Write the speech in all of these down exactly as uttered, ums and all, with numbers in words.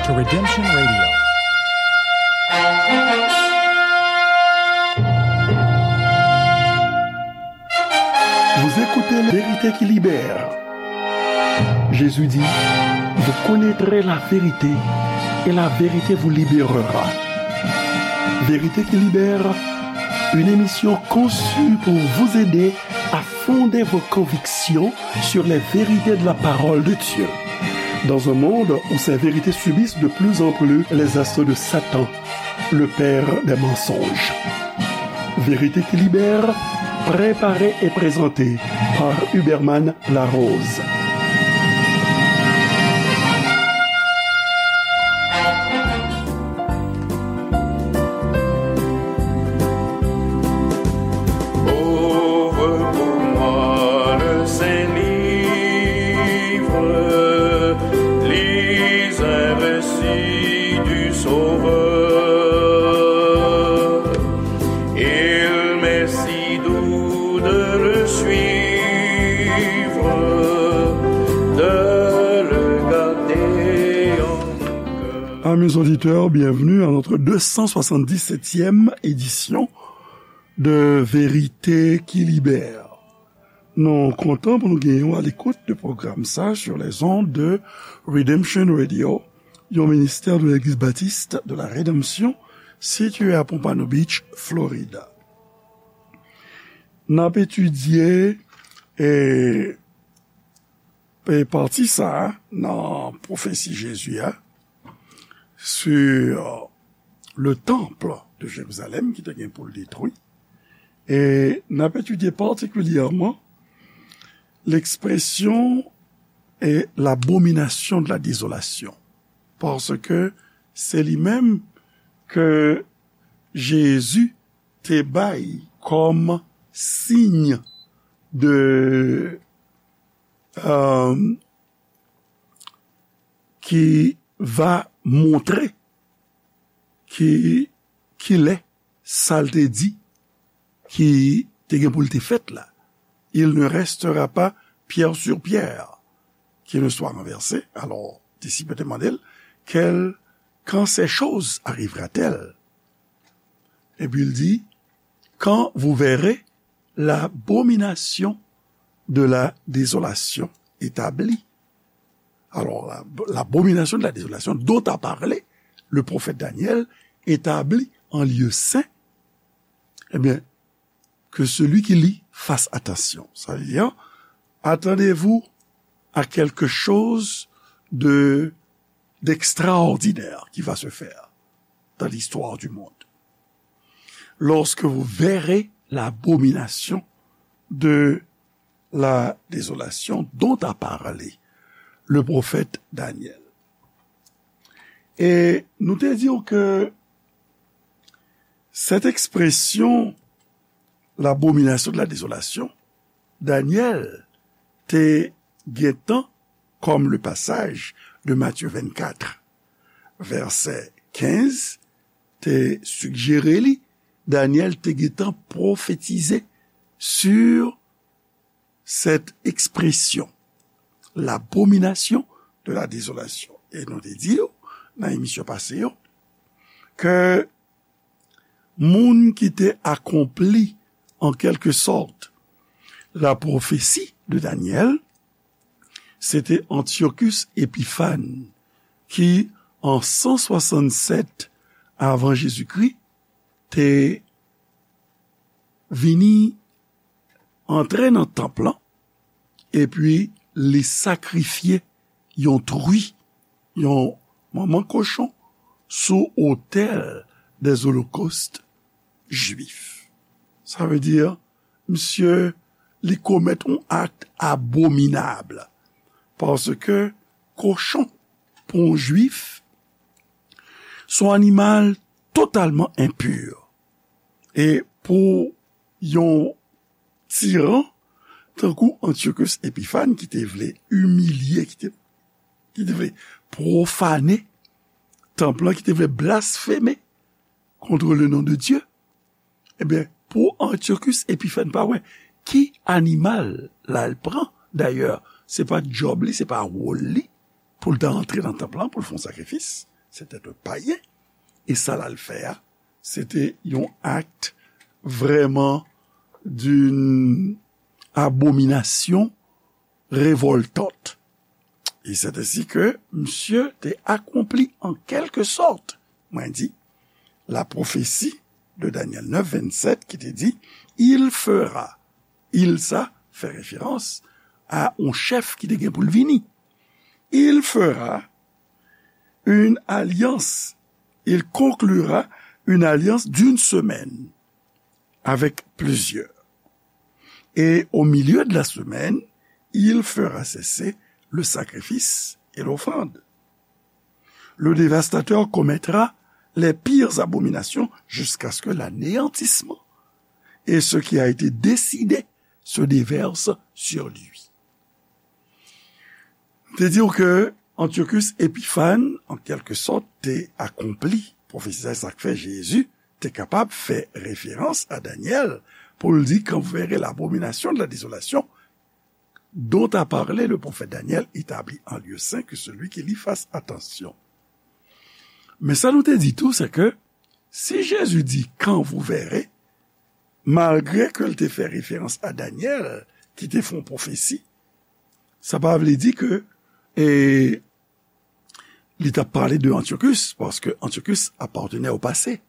Redemption Radio. Vous écoutez Vérité qui libère. Jésus dit, vous connaîtrez la vérité et la vérité vous libérera. Vérité qui libère, une émission conçue pour vous aider à fonder vos convictions sur les vérités de la parole de Dieu. Dans un monde où ces vérités subissent de plus en plus les assauts de Satan, le père des mensonges. Vérité qui libère, préparée et présentée par Huberman Larose. Ouvre pour moi le Saint Livre, lis un récit du Sauveur. Il m'est si doux de le suivre, de le garder en mon cœur. Amis auditeurs, bienvenue à notre deux cent soixante-dix-septième édition de Vérité qui Libère. Nou kontan pou nou genyen w a lekout de pwogram sa sur les ondes de Redemption Radio, yon ministè de Legliz Batis de la Redanmsyon sitiye a Pompano Beach, Florida. N ap etidye, e, e pati sa a nan pwofesi Jezi a sur le temple de Jérusalem ki te gen pou l detwi. E n ap etidye patikilyèman l'expression est l'abomination de la désolation. Paske se li menm ke Jezi te bay kòm siy de, euh, ki va montre ki, kilè sa l te di ki te gen pou l te fèt la. Il ne restera pas pierre sur pierre qui ne soit renversée. Alò, disip yo te mande l, quel, quand ces choses arrivera-t-elle? Epi l di, quand vous verrez l'abomination de la désolation établie. Alors, la, l'abomination de la désolation dont a parlé le prophète Daniel, établie en lieu saint, eh bien, que celui qui lit fasse attention. Ça veut dire, attendez-vous à quelque chose de, d'extraordinaire qui va se faire dans l'histoire du monde. Lorsque vous verrez l'abomination de la désolation dont a parlé le prophète Daniel. E nou te di w ke cette expression, l'abomination de la désolation, Daniel te gentan, comme le passage de Matthieu vingt-quatre, verset quinze, te sigjere li, Daniel te gentan pwofetize sur cette expression, l'abomination de la désolation. E nou te di yo nan emisyon pase yo ke moun ki te akonpli, en quelque sorte, la prophétie de Daniel, se te Antiochus Epiphan, ki, an san swasannsèt avan Jezikri, te vini antre nan tanp lan, epi li sakrifye yon tri, yon manman kochon, sou otèl des holocaustes juifs. Sa vle di, misye, li komèt yon akt abominab, paske kochon, pou yon jwif, se yon animal totalman enpi. E pou yon tiran, tankou Antiochus Epiphan, ki te vle imilye, ki te, ki te vle pwofane tanp lan, ki te vle blasfeme contre le nom de Dieu, ebyen, pou Antiochus Epiphan pa wè ki animal l al pran. Dayè, se pa djòb li, se pa wòl li pou l ta antre nan tanp lan, pou l fè yon sakrifis. C'était un païen. E sa l al fè a, se te yon act vraiment d'une abomination révoltante. Et c'est ainsi que monsieur te accompli en quelque sorte, mwen di, la prophétie de Daniel neuf vingt-sept ki te di, il fera, il sa fè référence à yon chèf ki te gen pou l vini. Il fera une alliance, il conclura une alliance d'une semaine avec plusieurs. Et au milieu de la semaine, il fera cesser le sacrifice et l'offrande. Le dévastateur commettra les pires abominations jusqu'à ce que l'anéantissement et ce qui a été décidé se déverse sur lui. Te di w ke Antiochus Epiphan, an kèlke sòt, te akonpli pwofesi sa, sa k fè Jezi te kapab fè referans a Danyèl pou l di, quand vous verrez l'abomination de la désolation dont a parlé le prophète Daniel établie en lieu saint, que celui qui lit fasse attention. Men sa nou te di tou, se ke si Jezi di quand vous verrez, malgre ke l te fè referans a Danyèl ki te fè yon pwofesi, sa pa vle di ke e, li t ap pale de Antiochus, paske Antiochus apartenait au passé.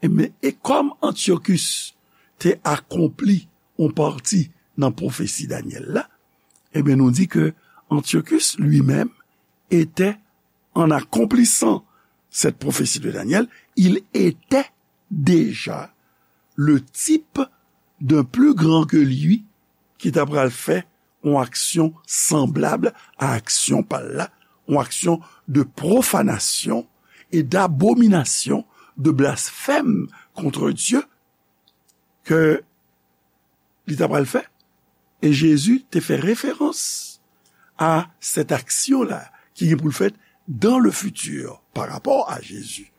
E, men, e kòm Antiochus te akonpli yon pati nan pwofesi Danyèl la, ebyen, nou di ke Antiochus lui-même était, en accomplissant cette prophétie de Daniel, il était déjà le type d'un plus grand que lui ki ta pral fè yon aksyon sanblab a aksyon pa l la, yon aksyon de profanasyon e d'abominasyon, de blasfèm contre Dieu ke li ta pral fè. E Jezi te fè referans a sèt aksyon la ki gen pou l fèt dans le futur par rapport à Jésus.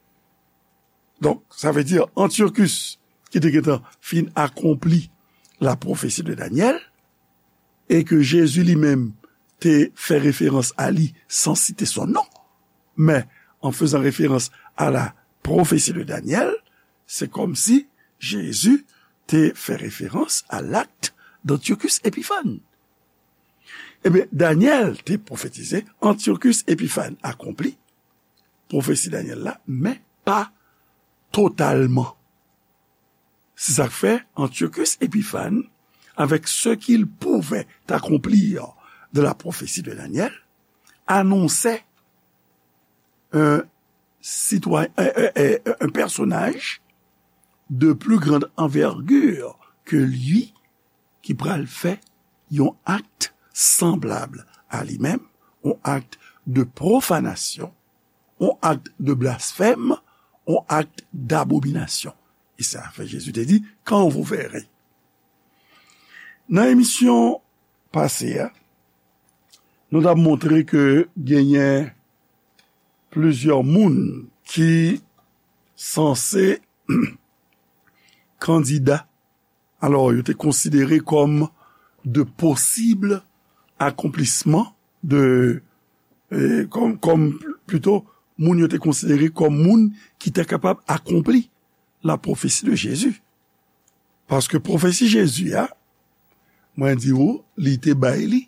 Donk, sa vle di Antiochus ki te gentan fin akonpli la pwofesi de Danyèl, e ke Jezi li menm te fè referans a li san site son non. Men, an fezan referans a la pwofesi de Danyèl, se kòmsi Jezi te fè referans a l'acte d'Antiochus Epiphan. Ebyen, Danyèl te pwofetize, Antiochus Epiphan akonpli pwofesi Danyèl la, men pa totalman. C'est ça que fait Antiochus Épiphan avec ce qu'il pouvait accomplir de la prophétie de Daniel, annonçait un citoyen, un, un, un, un personnage de plus grande envergure que lui ki pral fè yon ak sanblab a li menm, yon ak de pwofanasyon, yon ak de blasfèm, yon ak dabominasyon. E sa fè Jezi te di, quand vous verrez. Nan emisyon pase a, nou t ap montre ke genyen plizyè moun ki sanse kandida. Alò, yo te konsidere kòm de posib akonplisman de, eh, kòm, kòm, plito, moun yo te konsidere kòm moun ki te kapab akonpli la pwofesi de Jezi. Paske pwofesi Jezi a, mwen di w, li te bay li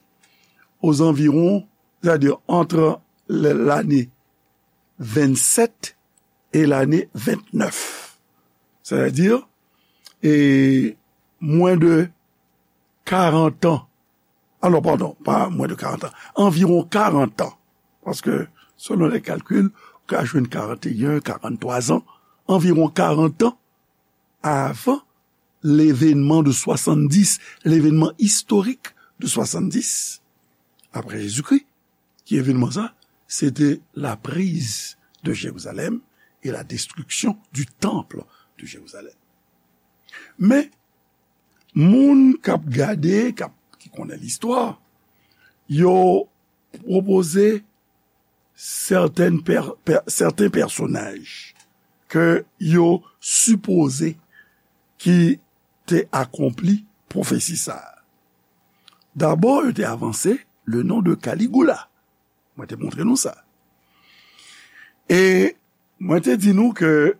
ozanviwon, sètadi ant lane vennsèt e lane ventnèf. Sètadi, e mwen de karant an. Ah non, padon, pa mwen de karant an. Anviwon karant an. Paske, selon lè kalkil, ou ka jwenn karanteyen, karanntwa zan. Anviwon karant an avan levenman de swasanndis, levenman istorik de swasanndis, apre Jezikri. Ki evenman sa? Se te la prise de Jérusalem et la destruction du temple de Jérusalem. Men, moun k ap gade, k ap, ki konnen listwa, yo pwopoze sèten pè-, pè-, sèten pèsonaj ke yo sipoze ki te akonpli pwofesi sa a. Dabò, yo te avanse le non de Caligula. Mwen te montre nou sa. E mwen te di nou ke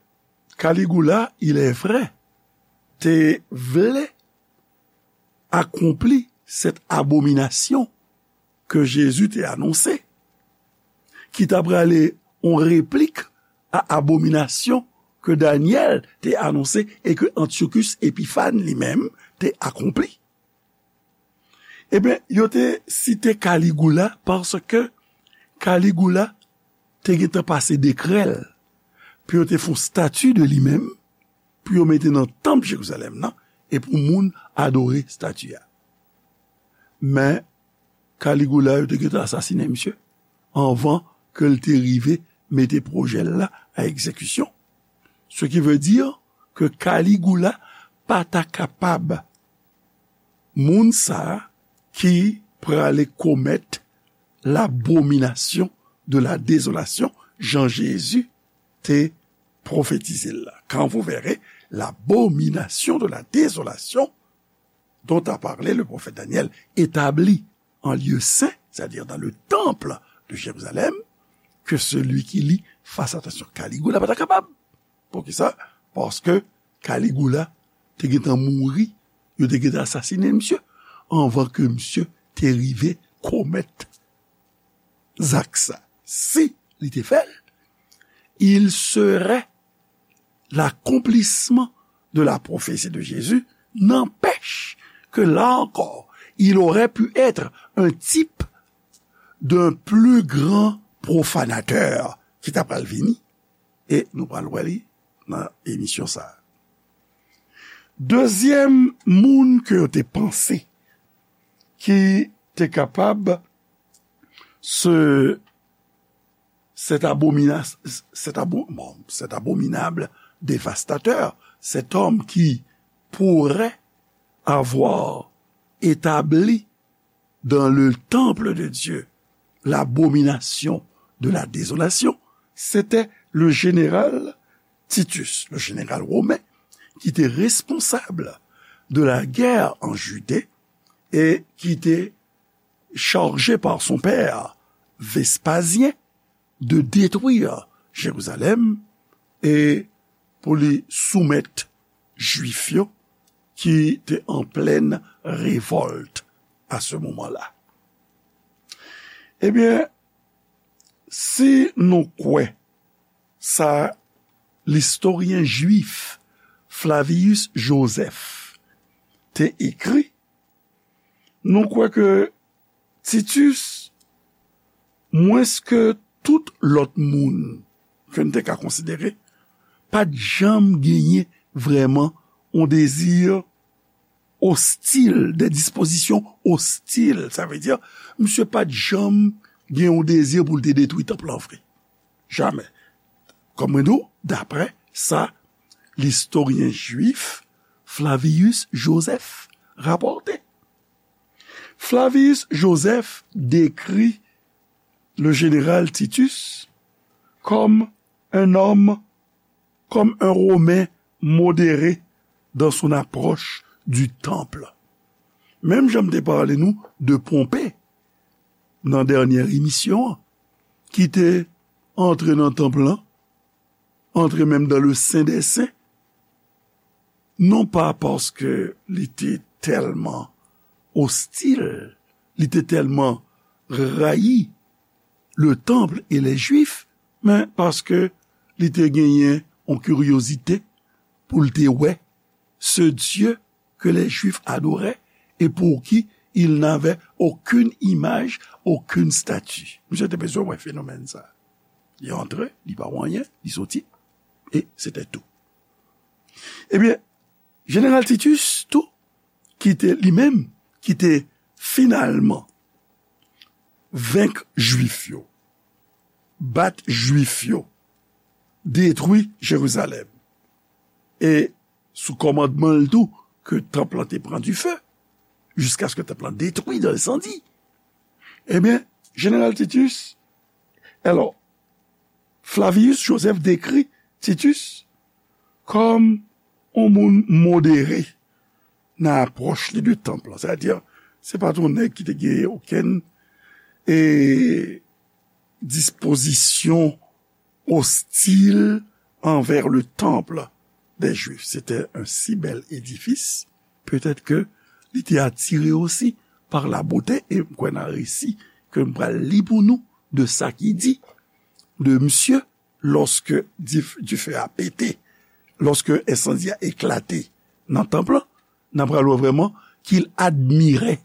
Caligula, il est vrai, te vle akonpli cette abomination ke Jezi te anonse, ki ta prale yon replik a abominasyon ke Danyèl te anonse e ke Antiochus Epiphan li menm te akonpli. Ebyen, yo te site Caligula paske Caligula te gentan pase dekrè l pou yo te fè yon stati de li menm, pou yo mete nan tanp Jerizalèm nan, e pou moun adore stati a. Men, Caligula, yo te gentan asasinen misye anvan ke l te rive mete pwojè l la a egzekisyon. Ce qui veut dire ke Caligula pa ta kapab moun sa a ki prale komèt l'abomination de la désolation, jan Jezi te pwofetize l la. Quand vous verrez l'abomination de la désolation dont a parlé le prophète Daniel, établie en lieu saint, c'est-à-dire dans le temple de Jérusalem, que celui qui lit fasse attention. Caligula pa ta kapab. Poukisa? Paske Caligula te gentan mouri, yo te gentan asasinen misye, anvan ke misye te rive komèt zak sa. Si li te fè l, il serait l'accomplissement de la prophétie de Jésus, n'empêche que là encore, il aurait pu être un type d'un plus grand profanateur ki ta pral vini, e nou pral wè li nan emisyon sa a. Dezyèm moun ke yo te panse ki te kapab se cet abomina-, cet abo-, bon, cet abominable dévastateur, cet homme qui pourrait avoir établi dans le temple de Dieu l'abomination de la désolation, c'était le général Titus, le général romain, qui était responsable de la guerre en Judée et qui était chargé par son père Vespasien de détruire Jérusalem e pou li soumèt Jwif yo ki te an plèn revòlt a se moman la. Ebyen, si nou kwè sa listoryen jwif Flavius Josèf te ekri, nou kwè ke Titus, mwens ke tout lòt moun ke n te ka konsidere, pa t janm genyen vrèman yon dezi ostil, des dispositions hostiles. Sa vle di, misye pa t janm gen yon dezi pou l te detwi tanp lan vre. Jamè. Kòm mwen di w, daprè sa listoryen jwif Flavius Josèf rapòte. Flavius Josèf dekri le général Titus comme un homme, comme un Romain modéré dans son approche du temple. Menm jan m te pale nou de Ponpe nan dènyè emisyon an, ki te antre nan tanp lan, antre menm dans le Saint des Saints, non pa paske li te tèlman ostil, li te tèlman rayi le temple et les Juifs, men paske li te genyen yon kiryozite pou l te wè ce Dieu que les Juifs adoraient et pour qui il n'avait aucune image, aucune statue. Misye te bezwen wè fenomèn sa. Li antre, li pa wè anyen, li soti, e se te tou. Ebyen, jeneral Titus tou, ki te li menm, ki te finalman venk Jwif yo, bat Jwif yo, detwi Jerizalèm, e sou kòmandman l tou ke tanp lan te pran dife, jiskaske tanp lan detwi dan ensandi. Ebyen, jeneral Titus, alò, Flavius Josèf dekri Titus kòm yon moun modere nan apwòch li de tanp lan. Sètadi, se pa t yon nèg ki te gen okenn, e, dispozisyon ostil anvè le temple des Juifs. C'était un si bel édifice, peut-être que li te atire osi par la beauté, e m kwè nan resi ke m pral li pou nou de sa ki di de misye, lòske dif-, dife a pete, lòske ensandi a eklate nan tanp lan, n ap pral wè vrèman qu'il admirait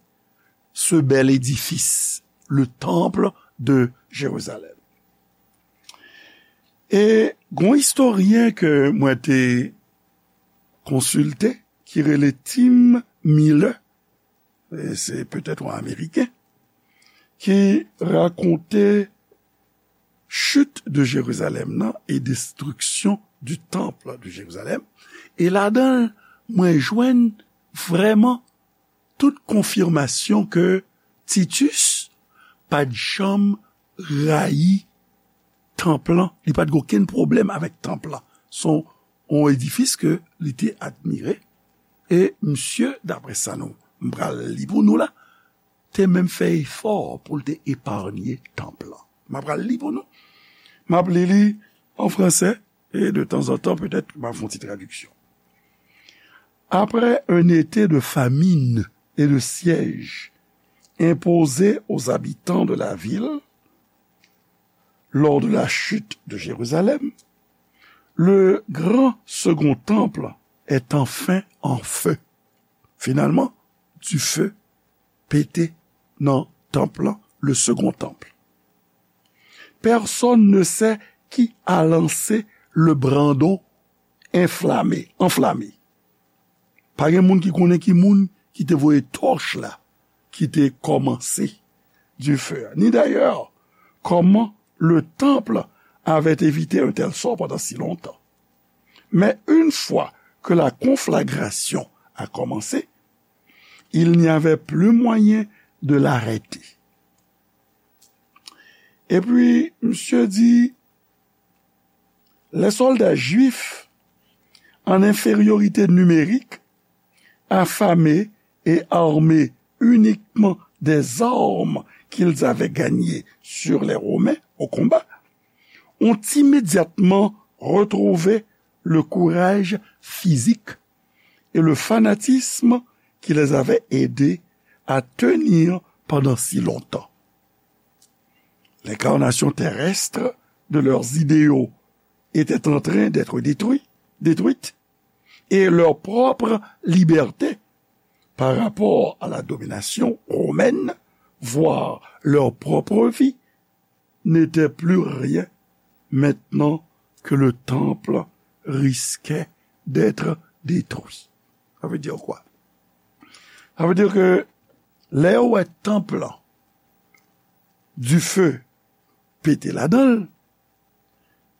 ce bel édifice, le temple de Jérusalem. E gon istoryen ke mwen te konsilte, ki rele Tim Miller, e se petèt yon Ameriken, ki rakonte chute de Jérusalem nan e destruction du temple de Jérusalem. E ladan l, mwen jwenn vrèman tout konfimasyon ke Titus pa t janm rayi tanp lan, li pa t gen okenn pwoblèm avèk tanp lan. Se yon, yon edifis ke li te admire. E misye, daprè sa nou, m pral li pou nou la, te menm fè efò pou l te eparnye tanp lan. M ap pral li pou nou. M ap li li an fransè, e de tanzantan, petèt, m ap fè yon ti tradiksyon. Après un été de famine et de siège imposé aux habitants de la ville lors de la chute de Jérusalem, le grand second temple est enfin en feu. Finalman, dife pete nan tanp lan, le second temple. Personne ne sait qui a lancé le brandon enflammé, enflammé. Pa gen moun ki konnen ki moun ki te voye tòch la, ki te kòmanse dife a. Ni d'ailleurs comment le temple avait évité un tel sort pendant si longtemps. Mais une fois que la conflagration a commencé, il n'y avait plus moyen de l'arrêter. Et puis, monsieur dit, les soldats juifs en infériorité numérique, affamés et armés uniquement des armes qu'ils avaient gagnées sur les Romains au combat, ont immédiatement retrouvé le courage physique et le fanatisme qui les avait aidés à tenir pendant si longtemps. L'incarnation terrestre de leurs idéaux était en train d'être détruit, détruite, et leur propre liberté par rapport à la domination romaine, voire leur propre vie, n'étaient plus rien maintenant que le temple risquait d'être détruit. Ça veut dire quoi? Ça veut dire que lè yo wè tanp lan, dife pete ladan l,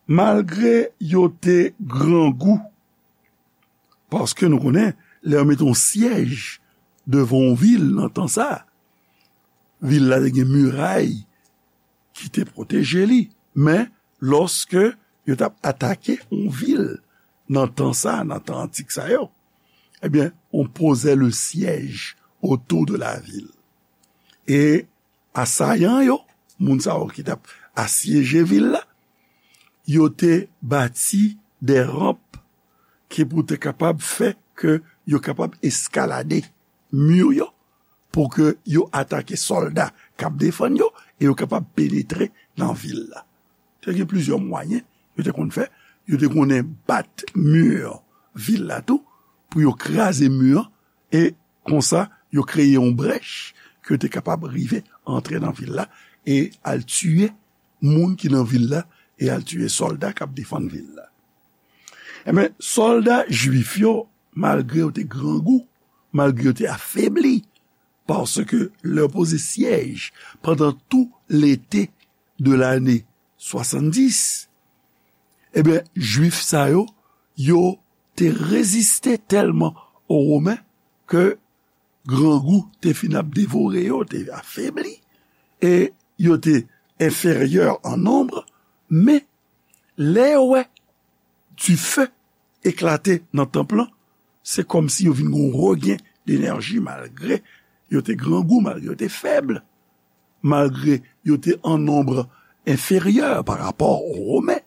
malgre yo te grangou, paske nou konnen, lè yo mete yon syèj devan yon vil nan tan sa, vil la te gen miray ki te pwoteje li. Men, lòske yo t ap atake yon vil nan tan sa, nan tan antik sa yo, ebyen, on posait le siège autour de la ville. E asayan yo, moun sa yo ki t ap asyeje vil la, yo te bati de ranp ki pou te kapab fè ke yo kapab eskalade mi yo, pou ke yo atake sòlda k ap defann yo, e yo kapab penetre nan vil la. Te gen plizyè mwayen yo te konn fè. Yo te konnen bat mi vil la tou, pou yo kraze mi an, e konsa, yo kreye yon brèch ke yo te kapab rive antre nan vil la e al tiye moun ki nan vil la e al tiye sòlda k ap defann vil la. Ebyen, sòlda jwif yo, malgre yo te grangou, malgre yo te afebli, paske lè yo poze syèj pandan tou lete de lane swasanndis, ebyen, jwif sa yo, yo te reziste tèlman o Women ke grangou te fin ap devore yo, te afebli, e yo te enferyè an nonb, men lè yo wè dife eklate nan tanp lan, se kòmsi yo vin gen yon regen denèji malgre yo te grangou, malgre yo te fèb, malgre yo te an nonb enferyè pa rapò o Women.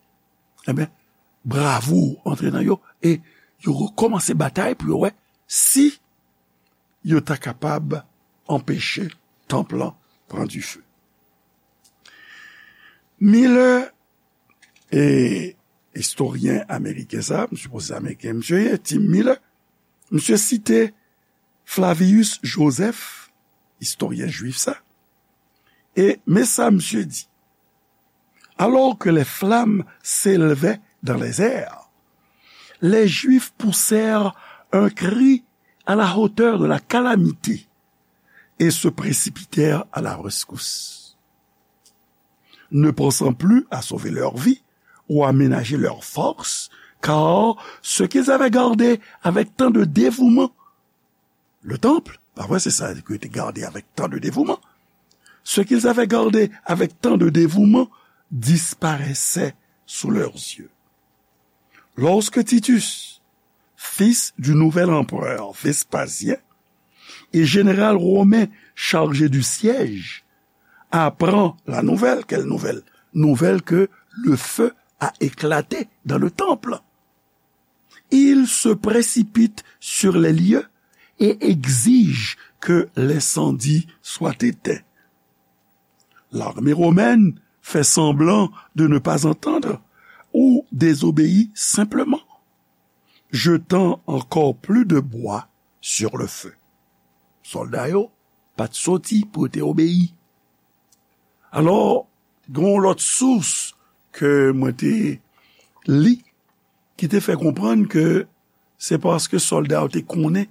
Ebyen, bravo antre nan yo, e yo rekòmanse batay pou yo wè si yo ta kapab anpeche tanp lan pran dife. Miller, e, istoryen ameriken sa, m sipoze se ameriken misye ye, Tim Miller, misye site Flavius Joseph, istoryen jwif sa, e men sa misye di: Alors que les flammes s'élevaient dans les airs, les Juifs poussèrent un cri à la hauteur de la calamité et se précipitèrent à la rescousse, ne pensant plus à sauver leur vie ou à ménager leur force, car ce qu'ils avaient gardé avec tant de dévouement, le temple, pa vre, se sa ke te gade avec tant de dévouement, ce qu'ils avaient gardé avec tant de dévouement disparaissait sous leurs yeux. Lorsque Titus, fils du nouvel empereur Vespasien, et général romain chargé du siège, apprend la nouvelle. Quelle nouvelle? Nouvelle que le feu a éclaté dans le temple. Il se précipite sur les lieux et exige que l'incendie soit éteint. L'armée romaine fait semblant de ne pas entendre ou désobéit simplement, jetant encore plus de bois sur le feu. Sòlda yo pa t soti pou yo te obeyi. Alò, gen yon lòt sous ke mwen te li ki te fè konprann ke se paske sòlda yo te konnen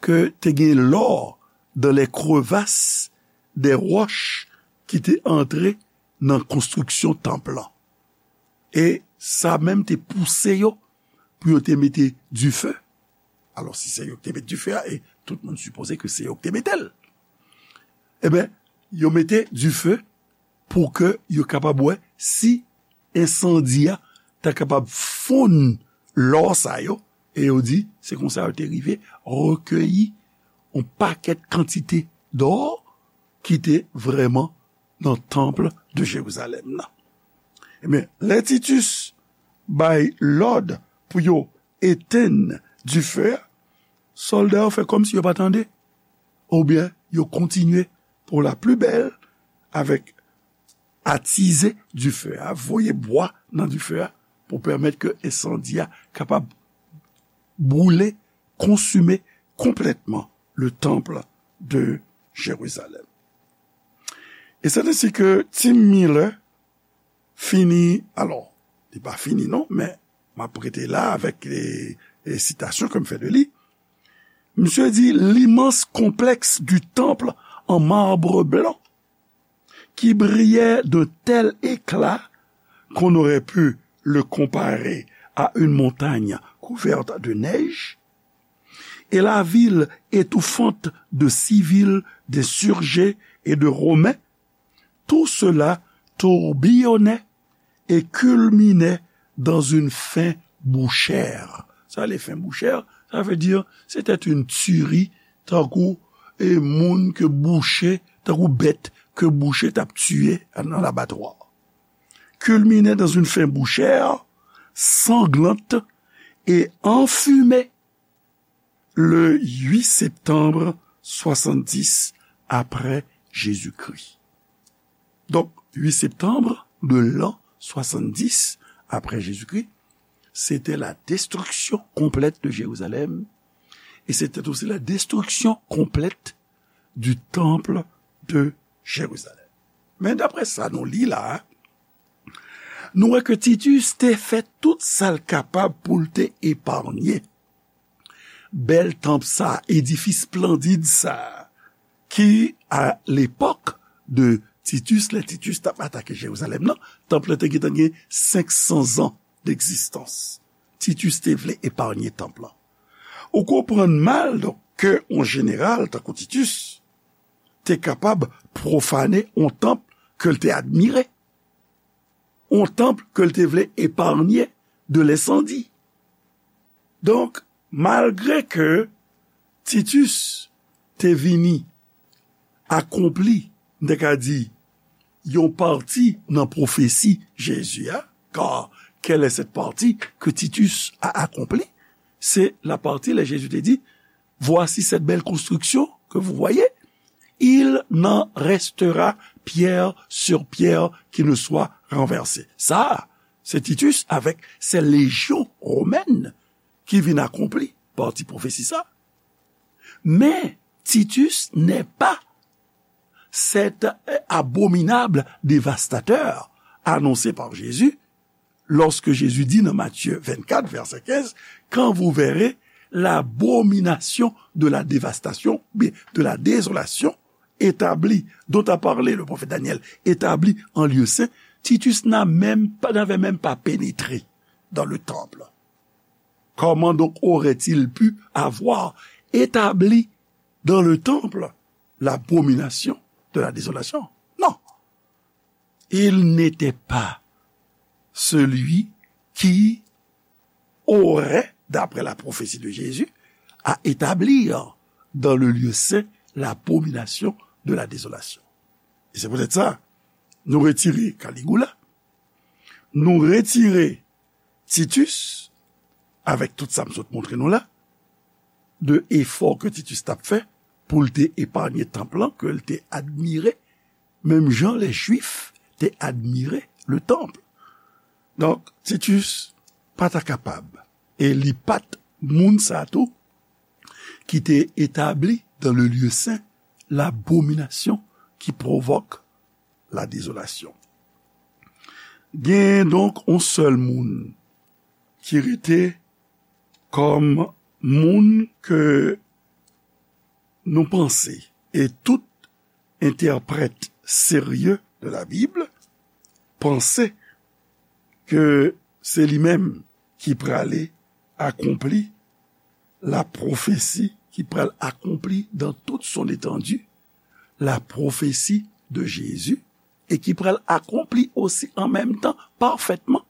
ke te gen lò dans les crevasses des roches ki te antre nan konstriksyon tanp lan. E sa menm te pouse yo pou yo te mete dife. Alò, si se yo ki te mete dife a, e tout moun sipoze ke se yo ki te mete l, ebyen, yo mete dife pou ke yo kapab wè si ensandi a ta kapab fonn lò sa yo, e yo di se konsa yo te rive rekeyi yon pakèt kantite dò ki te vrèman nan tanp de Jerizalèm nan. Ebyen, lè Titus bay lòd pou yo etenn dife a, sòlda yo fè kòmsi yo pa tande, oubyen yo kontinye pou la pli bèl avèk atize dife a, voye bwa nan dife a pou pèmèt ke ensandi a kapab boule, konsime konplètman le temple de Jérusalem. E se ensi ke Tim Miller fini, alò, li pa fini non, men m ap rete la avèk e, e sitasyon ke m fè de li. Misye di, l'immense complexe du temple en marbre blanc qui brillait d'un tel éclat qu'on aurait pu le comparer à une montagne couverte de neige, et la ville étouffante de civils, d'insurgés et de Romains, tout cela tourbillonnait et culminait dans une faim bouchère. Sa le faim bouchère, ça veut dire c'était une tuerie, tankou e moun ke bouche, tankou bèt ke bouche t ap tiye nan labatwa. Culminait dans une faim bouchère, sanglante et enfumée le huit septembre soixante-dix après Jésus-Christ. Donc, huit septembre de l'an soixante-dix après Jésus-Christ, c'était la destruction complète de Jérusalem et c'était aussi la destruction complète du temple de Jérusalem. Men daprè sa nou li la, nou wè ke Titus te fè tout sa l kapab pou l te eparnye bèl tanp sa, edifis esplandid sa, ki, a lepòk de Titus, lè Titus t ap atake Jerizalèm nan, tanp lan te gentan gen senk san zan degzistans. Titus te vle eparnye tanp lan. Ou konprann mal, donk, ke yon jeneral tankou Titus te kapab pwofane yon tanp ke l te admire, yon tanp ke l te vle eparnye de lensandi. Donk, malgre ke Titus te vini akonpli, m te ka di, yon pati nan pwofesi Jezi a, car Quelle est cette partie que Titus a accomplie? C'est la partie là Jésus te di, voici cette belle construction que vous voyez, il n'en restera pierre sur pierre qui ne soit renversée. Sa, se Titus avèk se lejyon womèn ki vin akonpli pati pwofesi sa. Men Titus n'est pas cet abominable dévastateur annoncé par Jésus lorsque Jésus dit dans Matthieu vingt-quatre, verset quinze, quand vous verrez l'abomination de la dévastation, bien, de la désolation établie, dont a parlé le prophète Daniel, établie en lieu saint, Titus n'a même pas, n'avait même pas pénétré dans le temple. Comment donc aurait-il pu avoir établi dans le temple l'abomination de la désolation? Non. Il n'était pas celui qui aurait, d'après la prophétie de Jésus, à établir dans le lieu saint l'abomination de la désolation. E se poutèt sa, nou retire Caligula, nou retire Titus, avèk tout sa m sot montre nou la, de efò ke Titus t ap fè pou l te epanye tanp lan, ke l te admire, menm jan lè Jwif te admire le tanp. Donk, Titus pa ta kapab, e li pa t moun sa tou ki te etabli dans le lieu saint l'abomination qui provoque la désolation. Gen donk yon sèl moun ki rete kòm moun ke nou panse, e tout entèprèt serye de la Bib panse ke se li menm ki prale akonpli la pwofesi, ki pral akonpli dans toute son étendue la prophétie de Jésus, e ki pral akonpli osi an menm tan pafètman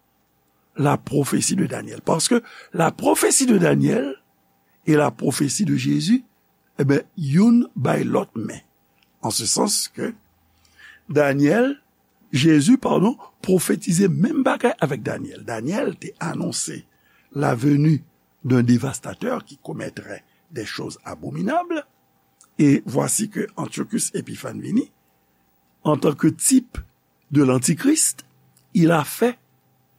la prophétie de Daniel. Paske la prophétie de Daniel e la prophétie de Jésus, e ben, youn bay lòt men. An se sans ke Daniel, Jezi, padon, pwofetize menm bagay avèk Daniel. Daniel te anonse la venue d'un dévastateur qui commettrait des choses abominables. Et voici que Antiochus Épiphan vini, en tant que type de l'Antichrist, il a fait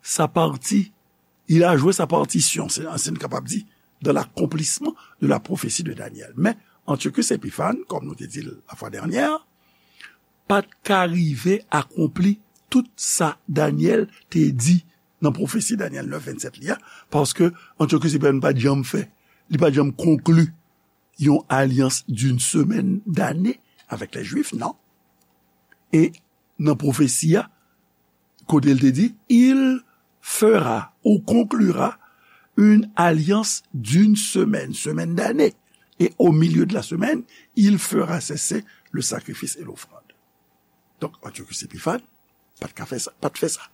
sa partie, il a joué sa partition, c'est, c'est capable de dire, dans l'accomplissement de la prophétie de Daniel. Men Antiochus Épiphan, kòm nou te di l la fwa dènyè, pa t ka rive akonpli tout sa Daniel te di nan pwofesi Daniel nèf vennsenk li a, paske Antiochus Épiphan pa t janm fè, li pa t janm konkli yon alyans d'une semaine d'année avec les Juifs, non. E nan pwofesi a, kote l te di, il fera ou conclura une alliance d'une semaine, semaine d'année, et au milieu de la semaine, il fera cesser le sacrifice et l'offrande. Donk, Antiochus Épiphan pa t ka fè sa, pa t fè sa.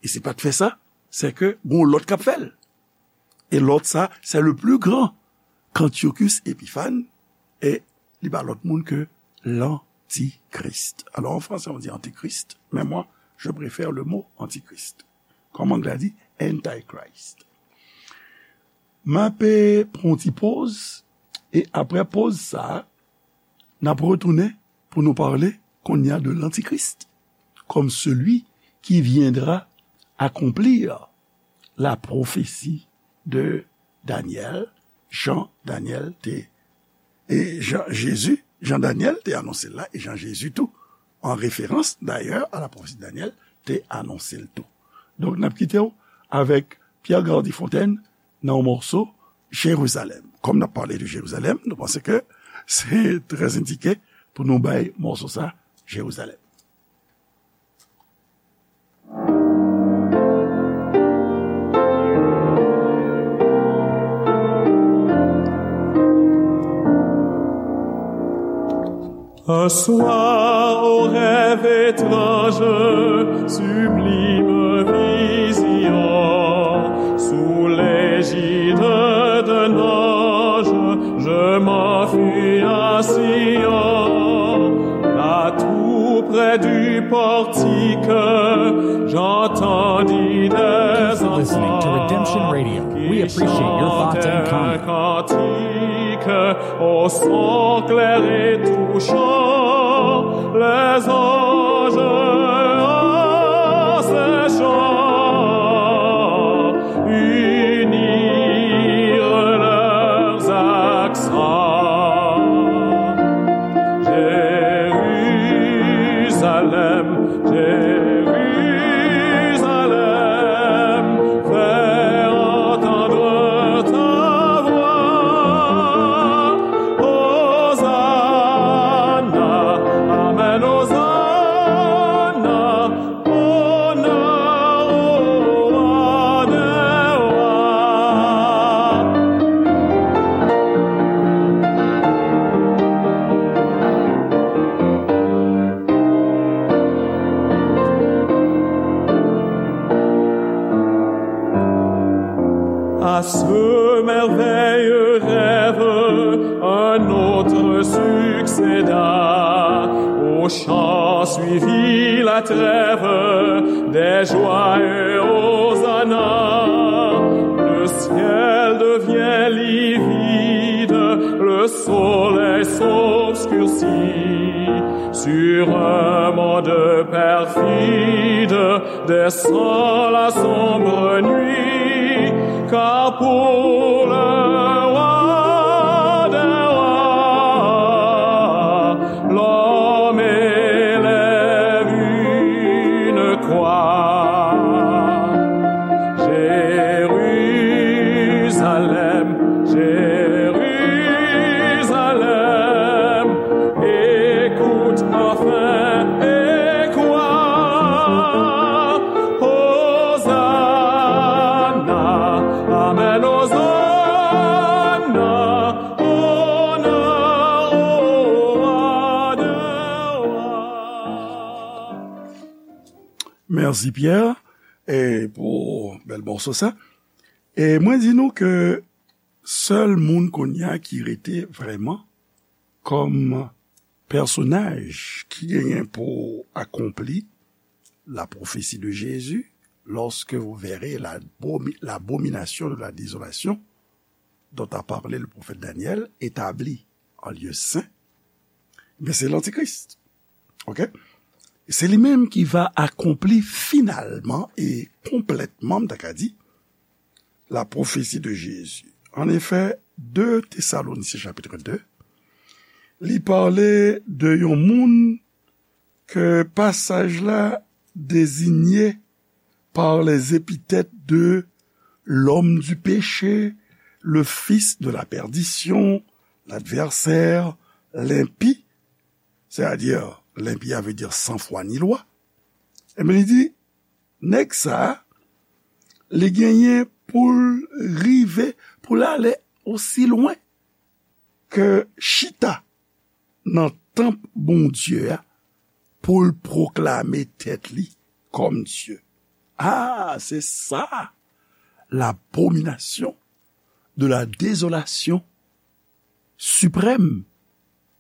E si pa t fè sa, se ke gon lòt k ap fè l. E lòt sa, c'est le plus grand qu'Antiochus Épiphan, e li pa lòt moun ke l'antichrist. Alors en français on dit antichrist, mais moi je préfère le mot antichrist. Kòm anglè a di, antichrist. M ape pran yon ti poz, e apre poz sa, n ap retounen pou nou pale kounye a de l'antichrist, comme celui qui viendra accomplir la prophétie de Daniel, jan Daniel te, e jan Jezi, jan Daniel te anonse l la, e jan Jezi tou, an referans dayè a la pwofesi de Daniel, te anonse l tou. Donk, n ap kite w avèk Pierre Gardy Fontaine nan yon mòso Jerizalèm. Kòm n ap pale de Jerizalèm, nou panse ke se trè endike pou nou bay mòso sa, Jerizalèm. Un soir, au rêve étrange, sublime vision, sous l'égide d'un ange, je m'enfuis à Sion, là tout près du portique, j'entendis des Listening to Redemption Radio. We appreciate your thoughts and comments. Au son clair et touchant, les anges en ces chants unirent leurs accents. Jérusalem, Jérusalem, fais entendre ta voix. Hosanna, amen, Hosanna, honneur au roi des rois. À ce merveilleux rêve, un autre succéda. Aux chants suivit la trêve, des joyeux hosanna. Le ciel devient livide, le soleil s'obscurcit. Sur un monde perfide, descend la sombre nuit, car pour le roi des rois, l'homme élève une croix. Jérusalem, Jérusalem, écoute enfin et crois. Hosanna, amen, Hosanna, honneur au roi des rois. Mèsi, Pierre, e pou bèl mòso sa. E mwen di nou ke sèl moun kounye a ki rete vrèman kòm pèsonaj ki genyen pou akonpli la prophétie de Jésus, lorsque vous verrez l'abomi-, l'abomination de la désolation dont a parlé le prophète Daniel établie en lieu saint, ben, se Lantikris. Ok? Se li menm ki va akonpli finalman e konplètman, m ta ka di, la prophétie de Jésus. En effet, de Tesalonisyen chapit de, li pale de yon moun ke pasaj la dezigne par les épithètes de l'homme du péché, le fils de la perdition, l'adversaire, l'impie, c'est-à-dire, l'impie a vle di san fwa ni lwa. Ebyen, li di, nèg sa a, li genyen pou l rive, pou l ale osi lwen ke chita nan tanp Bondye a pou l pwoklame tèt li kòm Dye. Ah, c'est ça, l'abomination de la désolation suprême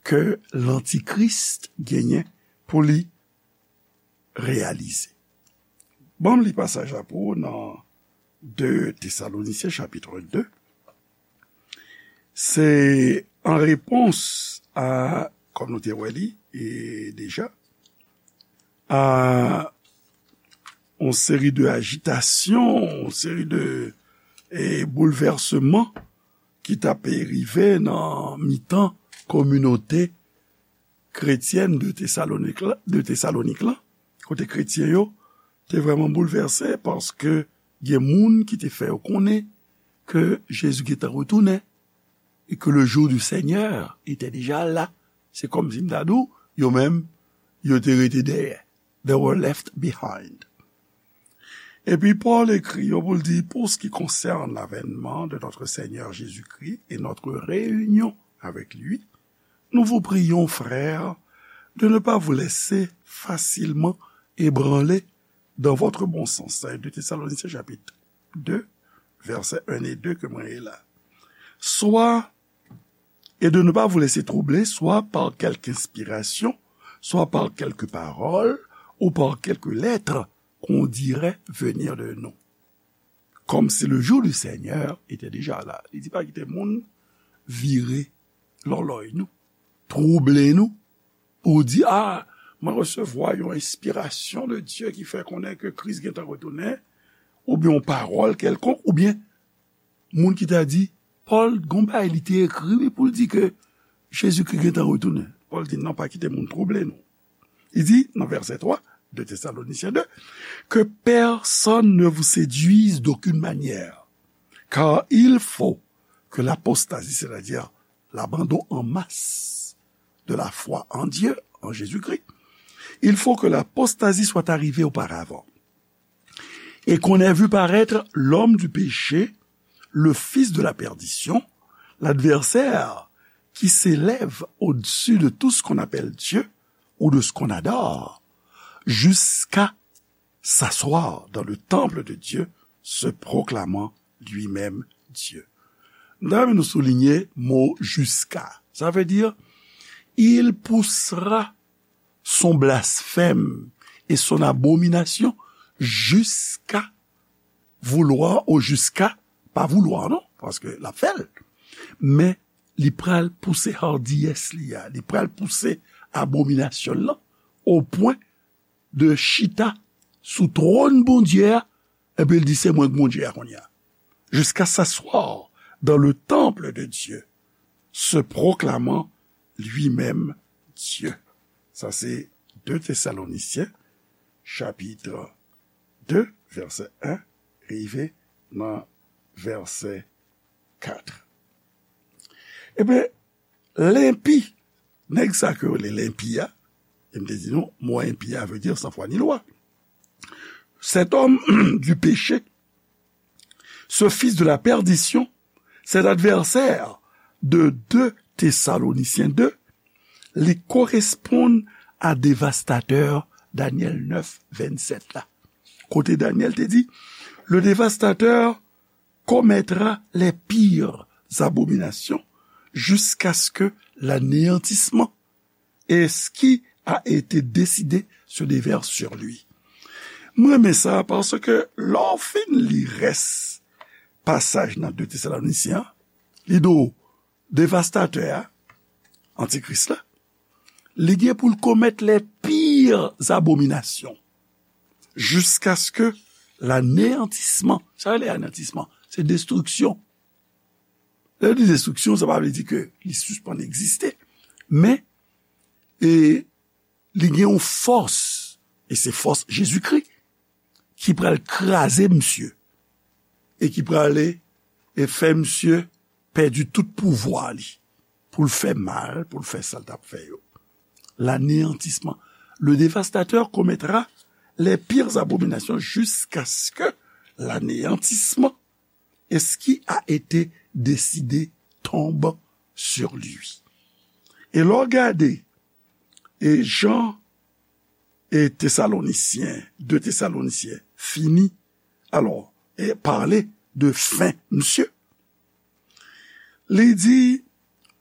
ke Lantikris genyen pou li reyalize. Ban m li pasaj la pou ou nan de Tesalonisyen chapit de. Se an repons a, kòm nou te wè li, e deja, a yon seri de ajitasyon, yon seri de, e, boulvèsman ki t ap rive nan mitan kominote kretyèn de Tesalonik la, de Tesalonik la, kote kretyen yo te vrèman boulvèse paske gen moun ki te fè yo konnen ke Jezi gentan retounen e ke le jour du Seigneur était déjà là. Se kòmsi m ta di w, yo menm, yo te rete dèyè. They were left behind. Epi Pòl ekri yo pou l di, pour ce qui concerne l'avènement de notre Seigneur Jésus-Christ et notre réunion avec lui, nous vous prions, frères, de ne pas vous laisser facilement ébranler dans votre bon sens. Sa e de Tesalonisyen chapit de, vèsè en e de ke mwen li la. Soit, et de ne pas vous laisser troubler, soit par quelque inspiration, soit par quelque parole, ou par quelque lettre qu'on dirait venir de nous. comme si le jour du Seigneur était déjà là. Li di pa kite moun vire lòlòy nou, twouble nou, pou di, a, mwen resevwa yon enspirasyon de Dye ki fè konnen ke Kris gentan retounen, oubyen yon pawòl kèlkonk, oubyen moun ki ta di, Pòl, gon bagay li te ekri, wi, pou l di ke Jezikri gentan retounen. Pòl di, non, pa kite moun twouble nou. Li di, nan vèsè twa, de Thessaloniciens deux, que personne ne vous séduise d'aucune manière, car il faut que l'apostasie, c'est-à-dire l'abandon en masse de la foi en Dieu, en Jésus-Christ, il faut que l'apostasie soit arrivée auparavant, et qu'on ait vu paraître l'homme du péché, le fils de la perdition, l'adversaire qui s'élève au-dessus de tout ce qu'on appelle Dieu ou de ce qu'on adore, jusqu'à s'asseoir dans le temple de Dieu, se proclamant lui-même Dieu. N ta renmen nou soulinye mo jusqu'à. Sa vle di, il poussera son blasphème et son abomination jusqu'à vouloir, ou jusqu'à pa vouloir, non, paske l ap fè l. Men li pral pouse hardiyès li a, li pral pouse abominasyon l lan, o pwen de chita sou twòn Bondye a, epi l di, se mwen k Bondye a kounye a. Jusqu'à s'asseoir dans le temple de Dieu, se proclamant lui-même Dieu. Sa se de Thessaloniciens, chapitre deux, vèsè un, rive nan vèsè quatre. Ebyen, lenpi, nèg sa ke yo rele lenpi a, e m te di nou, mo enpi a vle di san fwa ni lwa. Cet homme du péché, ce fils de la perdition, cet adversaire de deux Thessaloniciens deux, li koresponn a devastatè Danyèl neuf, vennsenk la. Kote Danyèl te di, le dévastateur commettra les pires abominations jusqu'à ce que l'anéantissement et ce qui a été décidé se déverse sur lui. Mwen renmen sa paske lè w fin li rès pasaj nan de Tesalonisyen an, li di w devastatè a, antikris la, li gen pou l komèt les pires abominations jusqu'à ce que l'anéantissement, sa rele aneyantisman, se destriksyon. Lè yo di destriksyon, sa pa vle di ke li sispann egziste, men e, li gen yon fòs, e se fòs Jezikri, ki pral kraze misye, e ki prale e fè misye pèdi tout pouvwa li, pou l fè mal, pou l fè sa l t ap fè yo. L'anéantissement. Le dévastateur commettra les pires abominations jusqu'à ce que l'anéantissement et ce qui a été décidé tombe sur lui. E lè w gade, e jan e Tesalonisyen, de Tesalonisyen fini, alò, e pale de fen misye. Li di,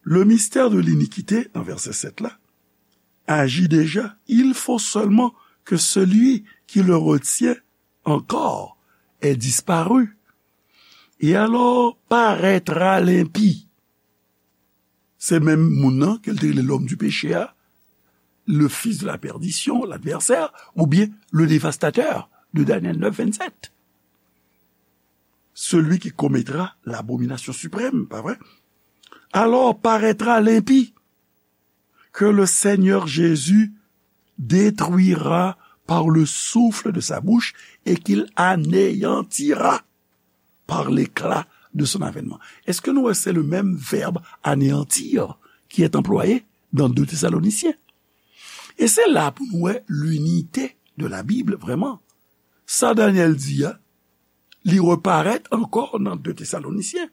le mystère de l'iniquité, nan vèsè sèt la, agit déjà. Il faut seulement que celui qui le retient encore ait disparu. Et alors paraîtra l'impie. Se menm moun nan ke l te rele l'homme du péché a, le fils de la perdition, l'adversaire, oubyen le dévastateur de Daniel neuf, vennsenk. Celui qui commettra l'abomination suprême, pa vre? Alors paraîtra l'impie, que le Seigneur Jésus détruira par le souffle de sa bouche et qu'il anéantira par l'éclat de son avènement. Èske nou wè se le menm vèb anéantir ki est employé dans deux Thessaloniciens? E se la pou nou wè l'unité de la Bible, vrèman. Sa Daniel di a, li reparèt ankò nan de Tesalonisyen.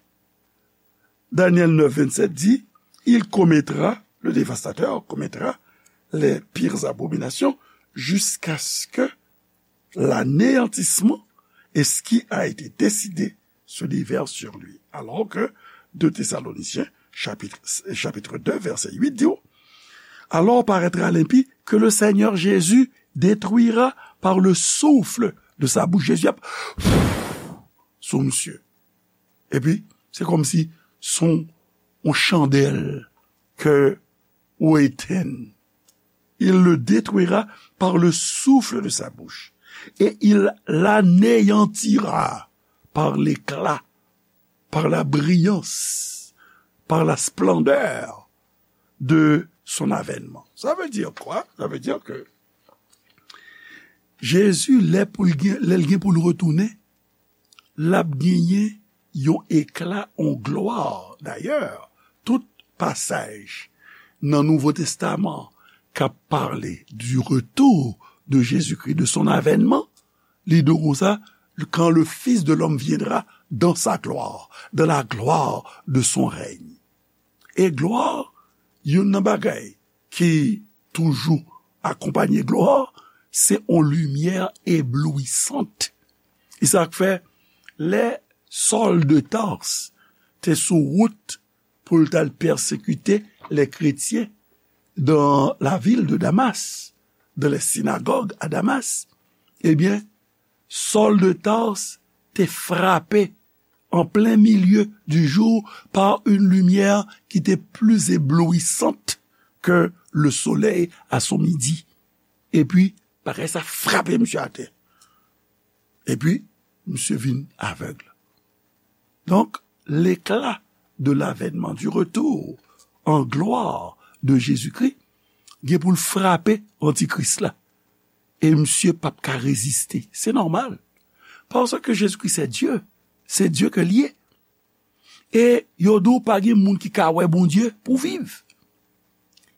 Daniel neuf, vennsenk di, il commettra, le dévastateur commettra les pires abominations jusqu'à ce que l'anéantissement et ce qui a été décidé se déverse sur lui. Alors que deux Thessaloniciens, chapitre, chapitre deux, verset huit, di, alors paraîtra l'impie que le Seigneur Jésus détruira par le souffle de sa bouche. Jezi ap, sou misye. Epi, se kòmsi se yon chandèl ke ou etenn. Il le détruira par le souffle de sa bouche, et il l'anéantira par l'éclat, par la brillance, par la splendeur de son avènman. Sa vle di kwa? Sa vle di ke Jezi, lè pou l gen, lè l gen pou l retounen, l ap genyen yon ekla, yon glwa. Dayè, tout pasaj nan Nouvo Testaman k ap pale du retour de Jésus-Christ, de son avènman, li di w konsa, quand le Fils de l'homme viendra dans sa gloire, dans la gloire de son règne. E glwa, youn nan bagay ki toujou akonpanye glwa, se yon limyè eblouisant. E sa k fè, lè Sòl de Tars te sou wout pou l t al pèsekite lè kretyen dans la ville de Damas, dans les synagogues à Damas, ebyen, Sòl de Tars te frape en plein milieu du jour par une lumière qui était plus éblouissante que le soleil à son midi. Epi, bagay sa frape misye atè. Epi, misye vin avèg. Donk, l'éclat de l'avènement, du retour en gloire de Jésus-Christ, gen pou l frape antikris la. E misye p ap ka reziste. Se nòmal. Paske Jezikri se Dye. Se Dye ke l ye. E yo di w pa gen moun ki ka wè Bondye pou viv.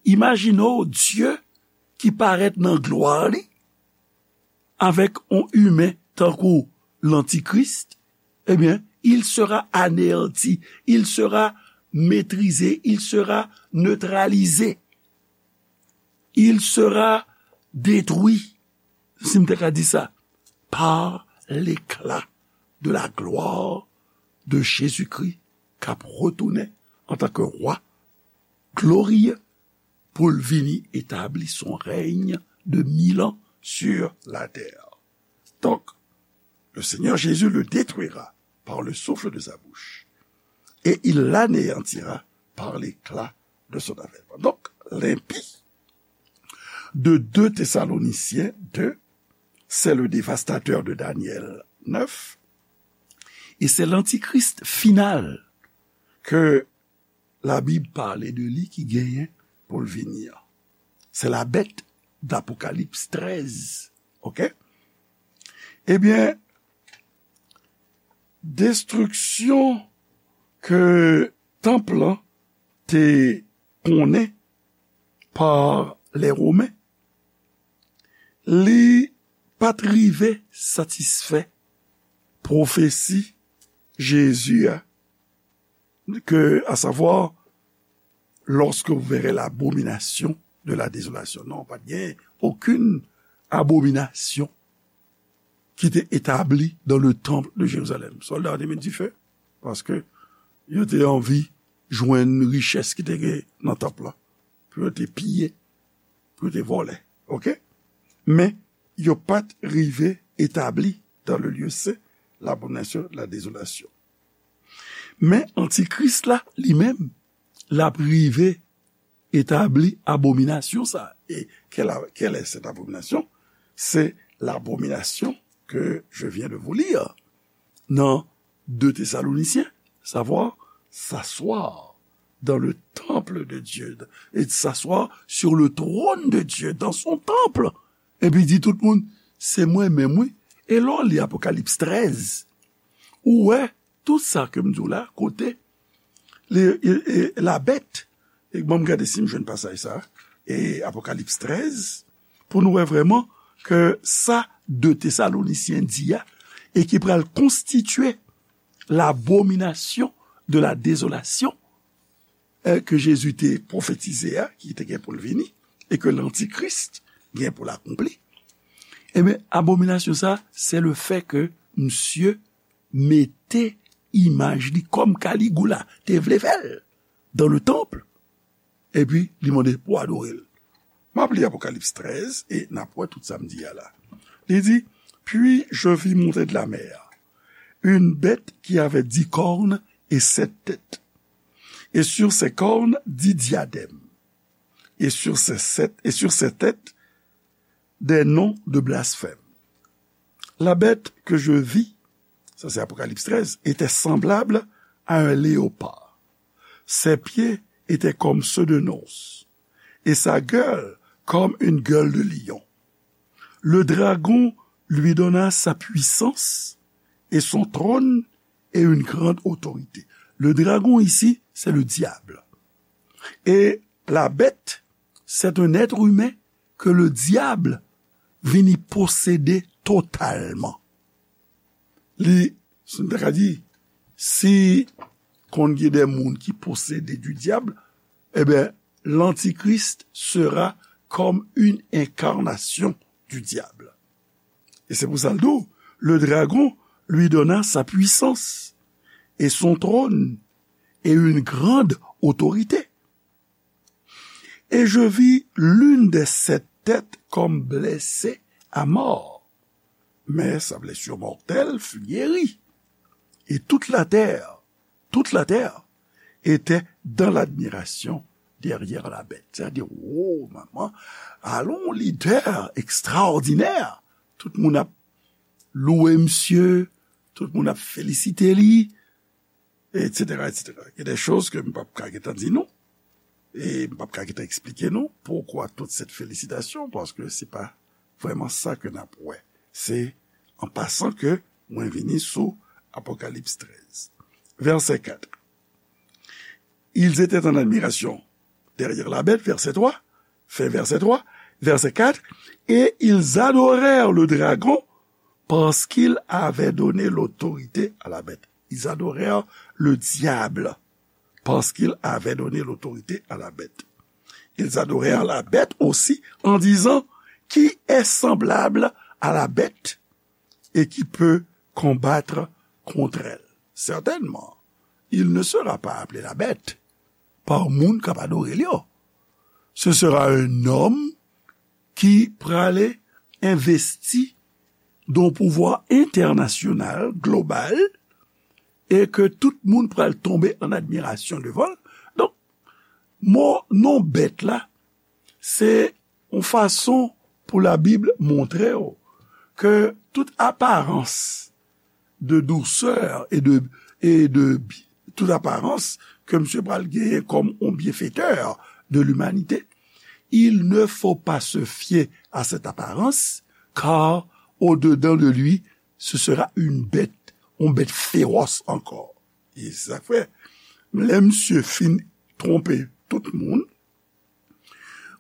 Imajine w Dye ki parèt nan glwa li avèk yon imen tankou lantikris, ebyen, il sera anéanti, il sera maîtrisé, il sera neutralisé, il sera détruit, si m te ka di sa, par l'éclat de la gloire de Jésus-Christ k ap retounen antanke wa gloriye pou l vini etabli son règne de mil ans sur la terre. Donc, le Seigneur Jésus le détruira par le souffle de sa bouche, et il l'anéantira par l'éclat de son avènement. Donc, l'impie de deux Thessaloniciens deux, c'est le dévastateur de Daniel neuf, et c'est l'antichrist final que la Bible parle de li ki genyen pou l vini an. Se la bèt d'Apocalypse treize. Oke? Ebyen, destriksyon ke tanp lan te konnen pa lè Women, li pa t rive satisfè pwofesi Jezi a, ke, à savoir, lorsque vous verrez l'abomination de la désolation. Non, pa t gen okenn abominasyon ki te etabli dans le temple de Jérusalem. Sòlda yo te met dife, paske yo te anvi jwenn richès ki te gen nan tanp lan, pou yo te piye, pou yo te vòlè. Oke? Men, yo pa t rive etabli dans le lieu saint l'abomination de la désolation. Men antikris la, li menm, l ap rive etabli abominasyon sa. E quelle, quelle est cette abomination? C'est l'abomination que je viens de vous lire dans deux Thessaloniciens, savoir s'asseoir dans le temple de Dieu et s'asseoir sur le trône de Dieu dans son temple. Epi di tout moun, se mwen menm wi. E lè w li Apokalips trèz, ou wè tout sa ke m di w la, kote le, e, e, la bèt, e ban m gade si m jwenn pasaj sa, e Apokalips trèz, pou nou wè vrèman ke sa de Tesalonisyen di a, e ki pral konstitye l'abomination de la désolation, e, ke Jezi te pwofetize a, ki te gen pou l vini, e ke lantikris gen pou l akonpli. Ebyen, abominasyon sa, se le fè ke misye mete imaj li kòm Kaligoula te vle fè l dans le temple, epi li mande pou adore l. M ap li Apokalips trèz e n ap wè tout sa m di a la. Li di, Puis je vis monter de la mer une bête qui avait dix cornes et sept têtes. Et sur ses cornes, dix diadèmes. Et sur ses sept, et sur ses têtes, des noms de blasphème. La bête que je vis, ça c'est Apocalypse treize, était semblable à un léopard. Ses pieds étaient comme ceux d'un ours, et sa gueule comme une gueule de lion. Le dragon lui donna sa puissance et son trône et une grande autorité. Le dragon ici, c'est le diable. Et la bête, c'est un être humain que le diable vini posséder totalement. Li, si nou ta ka di, si konn gen de moun ki posede du diable, eh bien, l'Antichrist sera comme une incarnation du diable. Et c'est pour ça le, le dragon lui donna sa puissance et son trône et une grande autorité. Et je vis l'une des sept têtes comme blessée à mort. Mais sa blessure mortelle fut guérie. Et toute la terre, toute la terre était dans l'admiration derrière la bête. C'est-à-dire, oh, maman, alon lidè ekstraòdinè. Tout moun ap louwe misye, tout moun ap felisite li, et cetera, et cetera. Il y a des choses que m p ap ka gentan di nou, e m p ap ka gentan eksplike nou pourquoi toute cette félicitation, parce que c'est pas vraiment ça que n ap wè. Se an pasan ke mwen vini sou Apocalypse treize. Verset quatre. Ils étaient en admiration derrière la bête, verset trois, fin verset trois, verset quatre, et ils adorèrent le dragon parce qu'il avait donné l'autorité à la bête. Ils adorèrent le diable parce qu'il avait donné l'autorité à la bête. Ils adorèrent la bête aussi en disant, qui est semblable à la bête et qui peut combattre contre elle? Certainement, il ne sera pas appelé la bête par moun k ap adore l yo. Ce sera un homme ki prale envesti d'un pouvoir international, global, e ke tout moun pral tonbe an admirasyon devan l. Donk, mo non bèt la, se yon fason pou Labib montre w ke tout aparans de douceur et de, et de bi-, tout aparans ke misye pral genyen kòm yon bienfaiteur de l'humanité, il ne faut pas se fier à cette apparence, car au-dedans de lui, ce sera une bête, yon bèt fewòs ankò. E sa k fè, lè misye fin twonpe tout moun,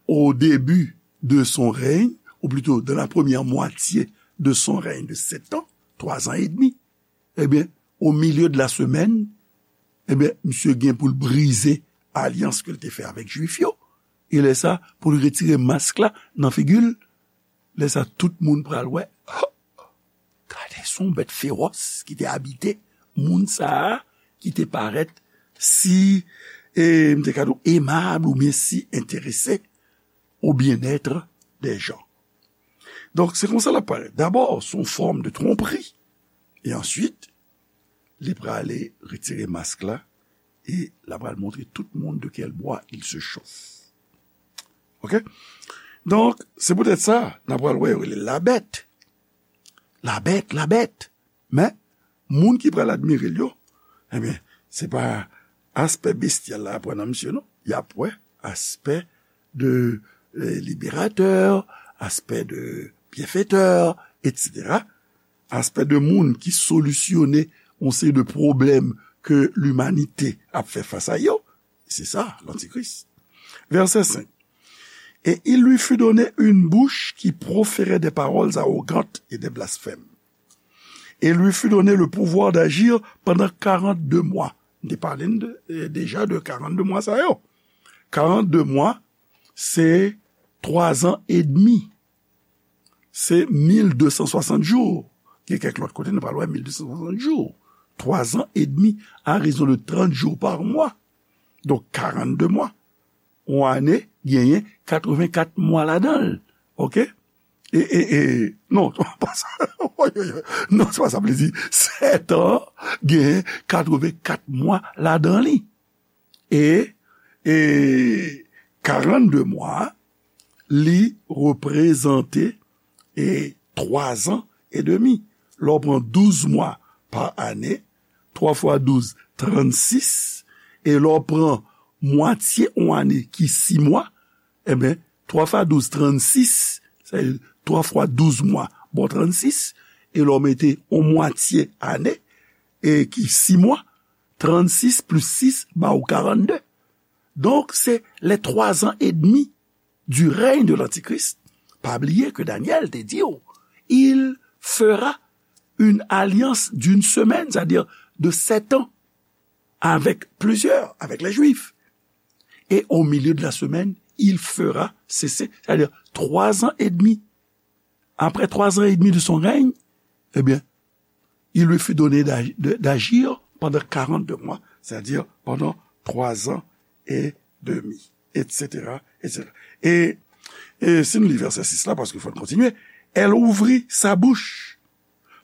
au début de son règne, ou plutôt dans la première moitié de son règne de sept ans, trois ans et demi, ebyen, au milieu de la semaine, ebyen, misye gen pou l brize alyans ke l te fè avèk Jwif yo. E lè sa, pou l retire mask la nan figi l, lè sa, tout moun pral wè, oh, gade, se yon bèt fewòs ki te abite moun sa a, ki te parèt si, e, m te ka di w, aimable oubyen si enterese au bien-être des gens. Donk, se konsa l ap parèt. Dabò, se yon fòm de twonpri. E answit, li prale retire mask la e l ap pral montre tout moun de quel bois il se chauffe. Oke? Donk, se poutèt sa, n ap pral wè yo rele l Labèt. Labèt, Labèt. Men, moun ki pral admire l yo, ebyen, se pa aspè bestyal la y ap wè nan misye, non. Y ap wè aspè de, eh, libérateur, aspè de bienfaiteur, et cetera. Aspè de moun ki solisyone yon seri de pwoblèm ke limanite ap fè fas a yo. Se sa, lantikris. Verset cinq. Et il lui fut donné une bouche qui proférait des paroles arrogantes et des blasphèmes. Et lui fut donné le pouvoir d'agir pendant quarante-deux mois. M te pale n de, eh, deja de quarante-deux mwa sa yo. Quarante-deux mwa, se twa zan edmi. Se mil de san swasant jou. Gen kèk lòt kote, nou pral wè mil de san swasant jou. Twa zan edmi, à raison de trente jours par mois. Donk, quarante-deux mwa. Yon ane genyen katrevenkat mwa ladan l. Oke? E, e, e, non, pa sa. Oy, oy, oy. Non, se pa sa m vle di. Sèt an, gen katrevenkat mwa ladan li. E, e karannde mwa, li reprezante, e, twa zan e demi. Lè w pran douz mwa pa ane, twa fwa douz, trannsis, e lè w pran mwatye yon ane ki sis mwa, ebyen, twa fwa douz, trannsis, sa vle di twa fwa douz mwa, bon, trannsis, e lè w mete yon mwatye ane, e ki sis mwa, trannsis plis sis ba ou karannde. Donk, se les trois ans et demi du règne de l'Antichrist. Pa bliye ke Danyèl te di w, il fera une alliance d'une semaine, c'est-à-dire de sept ans, avec plusieurs, avec les Juifs. Et au milieu de la semaine, il fera cesser, c'est-à-dire trois ans et demi. Après trois ans et demi de son règne, eh bien, il lui fut donné d'ag-, de, d'agir pendant quarante-deux mois, c'est-à-dire pendant trois ans et demi, et cetera, et cetera. E, e si n li vèsè sis la, paske fò n kontinye, elle ouvrit sa bouche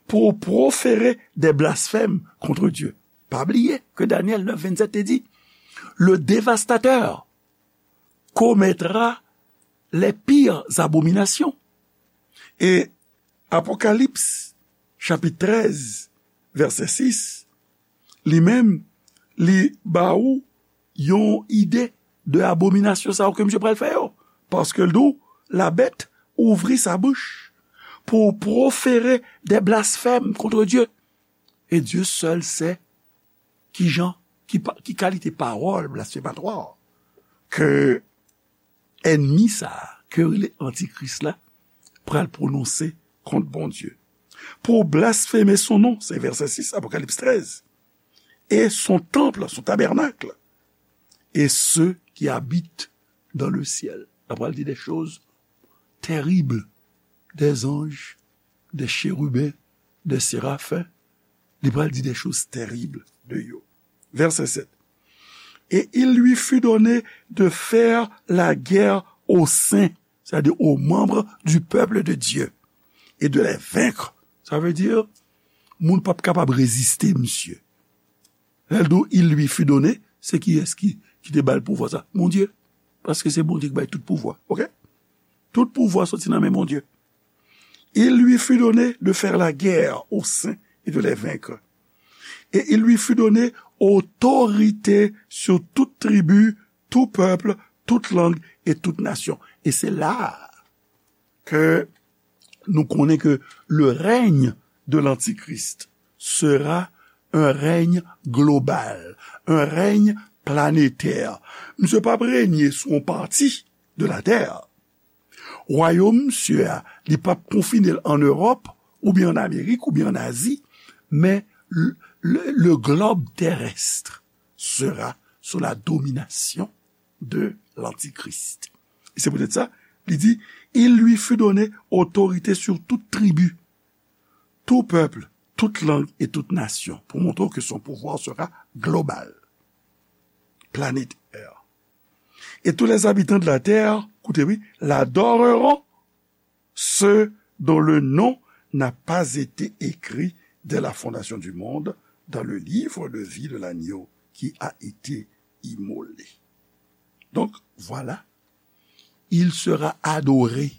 pour proférer des blasphèmes contre Dieu. Pa bliye ke Danyèl nèf vennsèt te di, le dévastateur commettra les pires abominations. E Apokalips, chapit trèz, vèsè sis, li menm, li ba ou yon ide de abominasyon sa yo ke misye pral fè yo. Paske l di w, la bête ouvrit sa bouche pour proférer des blasphèmes contre Dieu. Et Dieu seul sait ki jan, ki, pa- ki kalite pawòl blasfematwa ke ènmi sa a, ke yo rele Antikris la, pral pwononse kont Bondye. Pour blasphémer son nom, se vèsè sis, Apokalips trèz, et son temple, son tabernacle, et ceux qui habitent dans le ciel. L pral di des choses terribles, des anges, des chérubins, des séraphins. Li pral di des choses terribles de yo. Vèsè sèt. Et il lui fut donné de faire la guerre aux saints, c'est-à-dire aux membres du peuple de Dieu, et de les vaincre. Sa vle di, moun p ap kapab reziste misye. Lè l di w, il lui fut donné, se kiyès ki, ki te ba l pouvwa sa? Bondye. Paske se Bondye ki bay tout pouvwa. Oke? Tout pouvwa soti nan men Bondye. Il lui fut donné de faire la guerre aux saints et de les vaincre. Et il lui fut donné autorité sur toute tribu, tout peuple, toute langue et toute nation. Et c'est là que nou konnen ke le règne de l'Antichrist sera un règne global, un règne planétaire. Misye p ap renye sou yon pati de latè. Wayòm misye a, li p ap konfine l an Ewòp, oubyen an Amerik, oubyen an Azi, men le, le, le globe terrestre sera sous la domination de l'Antichrist. E se poutèt sa, li di, il lui fut donné autorité sur toute tribu, tout peuple, toute langue et toute nation, pou montre w ke son pouvoir sera global, planétaire. Et tous les habitants de la terre, koute wi, l'adoreront, ceux dont le nom n'a pas été écrit dès la fondation du monde dans le livre de vie de l'agneau qui a été immolé. Donc, voilà, il sera adoré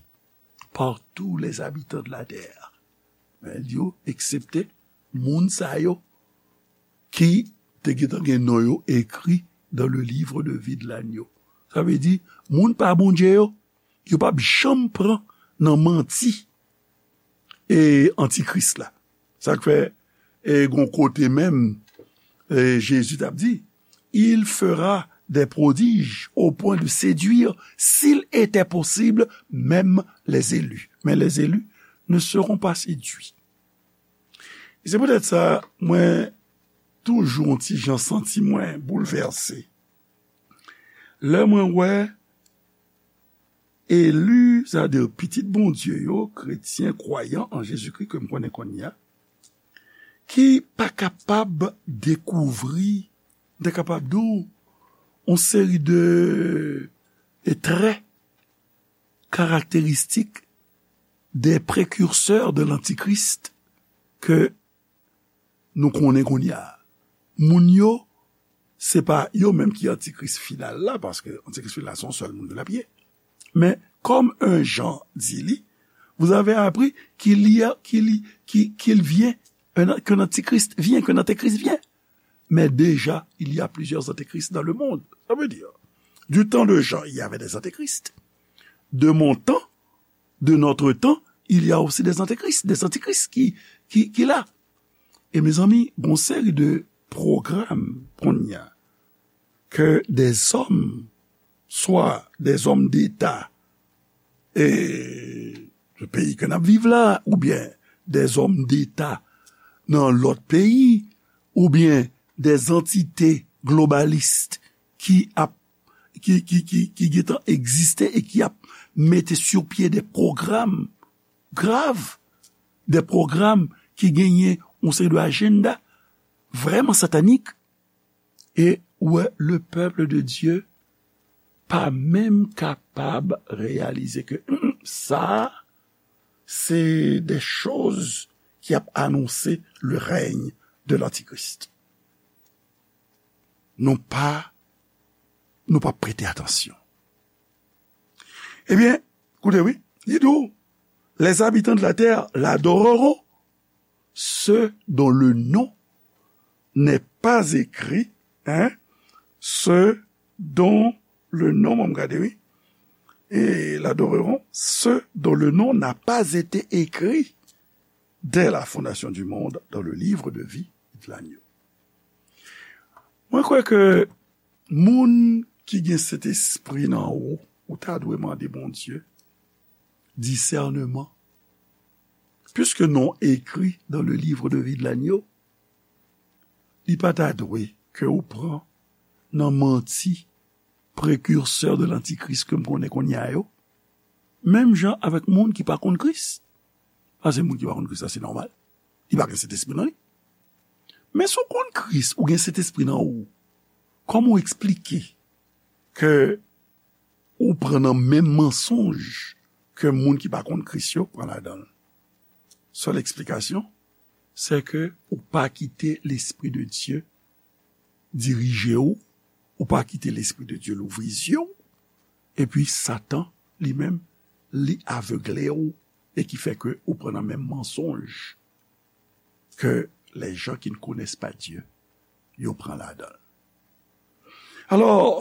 par tous les habitants de la terre. Men l di yo, eksepte moun sa yo ki te gentan gen non yo ekri dans le livre de vie de l'agneau. Sa vle di, moun pa Bondye yo, yo p ap janm pran nan manti e antikris la. Sa k fè, e gon kote menm, e Jezi t ap di, il fera des prodiges au point de séduire, s'il était possible, même les élus. Mais les élus ne seront pas séduits. E se poutèt sa, mwen toujou yon ti jan santi mwen boulvèse lè mwen wè eli, sètadi pitit Bondye yo, kretyen, kwayan an Jezikri ke m konnen kounye a, ki pa kapab dekouvri, m ta kapab di w, yon seri de, de trè karakteristik des précurseurs de l'antichrist ke nou konnen kounye a. Moun yo, se pa yo menm ki antikris final la, paske antikris final la se yon sèl moun ke l ap ye. Men, comme un Jean di li, vous avez appris qu'il y a, qu'il y- qui- qu'il vient, un- qu'un antichrist vient, qu'un antéchrist vient. Mais déjà, il y a plusieurs antéchrists dans le monde. Ça veut dire, du temps de Jean, il y avait des antéchrists. De mon temps, de notre temps, il y a aussi des antéchrists, des antéchrists qui, qui, qui là. E mezanmi, gon seri de pwogram kounye a ke dèzòm, swa dèzòm deta e peyi ke n ap viv la, oubyen dèzòm deta nan lòt peyi, oubyen dèzantite globalis ki ap ki, ki, ki, ki gentan egziste e ki ap mete sou pye de pwogram grav, de pwogram ki genyen yon seri de ajanda vrèman satanik, e ou wè le peuple de Dieu pa menm kapab reyalize ke, hmm, sa, se de choz ki ap anonse le règne de l'antichrist. Nou pa, nou pa prete atansyon. Ebyen, koute wi, li di w, les habitants de la terre l'adoreront, ceux dont le nom n'est pas écrit, hein, ceux dont le nom, m gade wi, et l'adoreront, ceux dont le nom n'a pas été écrit dès la fondation du monde dans le livre de vie de l'agneau. Mwen kwè ke moun ki gen Sentespri nan ou, ou ta dwe mande Bondye disèneman. Puisque non écrit dans le livre de vie de l'agneau, li pa ta dwe ke ou pran nan manti prekirsè de lantikris ke m konnen kounye a yo, menm jan avèk moun ki pa konn Kris. Paske moun ki pa konn Kris la, se nòmal. Li pa gen Sentespri nan li. Men si w konn Kris, ou gen Sentespri nan ou, kòman w eksplike ke ou pran nan menm mansonj ke moun ki pa konn Kris yo pran ladan l? Sèl eksplikasyon, se ke ou pa kite Lespri de Dye dirije w, ou pa kite Lespri de Dye louvri zye w, epi Satan, li menm, li avegle w, e ki fè ke ou pran nan menm mansonj que les gens qui ne connaissent pas Dieu, yo pran ladan l. Alò,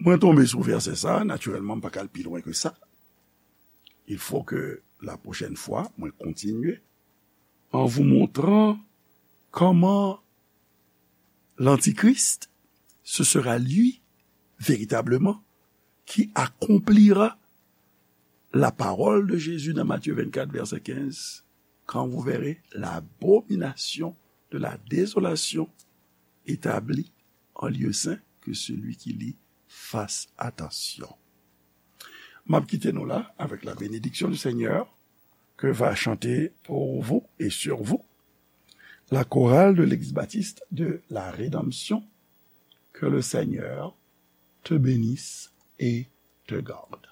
mwen tonbe sou vèsè sa, natirèlman, m pa ka al pi lwen ke sa. Il faut que la prochaine fois, mwen kontinye en vous montrant comment l'Antichrist, ce sera lui, véritablement, qui accomplira la parole de Jésus dans Matthieu vingt-quatre, verset quinze, quand vous verrez l'abomination de la désolation établie en lieu saint, que celui qui lit fasse attention. M ap kite nou la avec la bénédiction du Seigneur que va chanter pour vous et sur vous la chorale de l'Église baptiste de la Rédemption. Que le Seigneur te bénisse et te garde.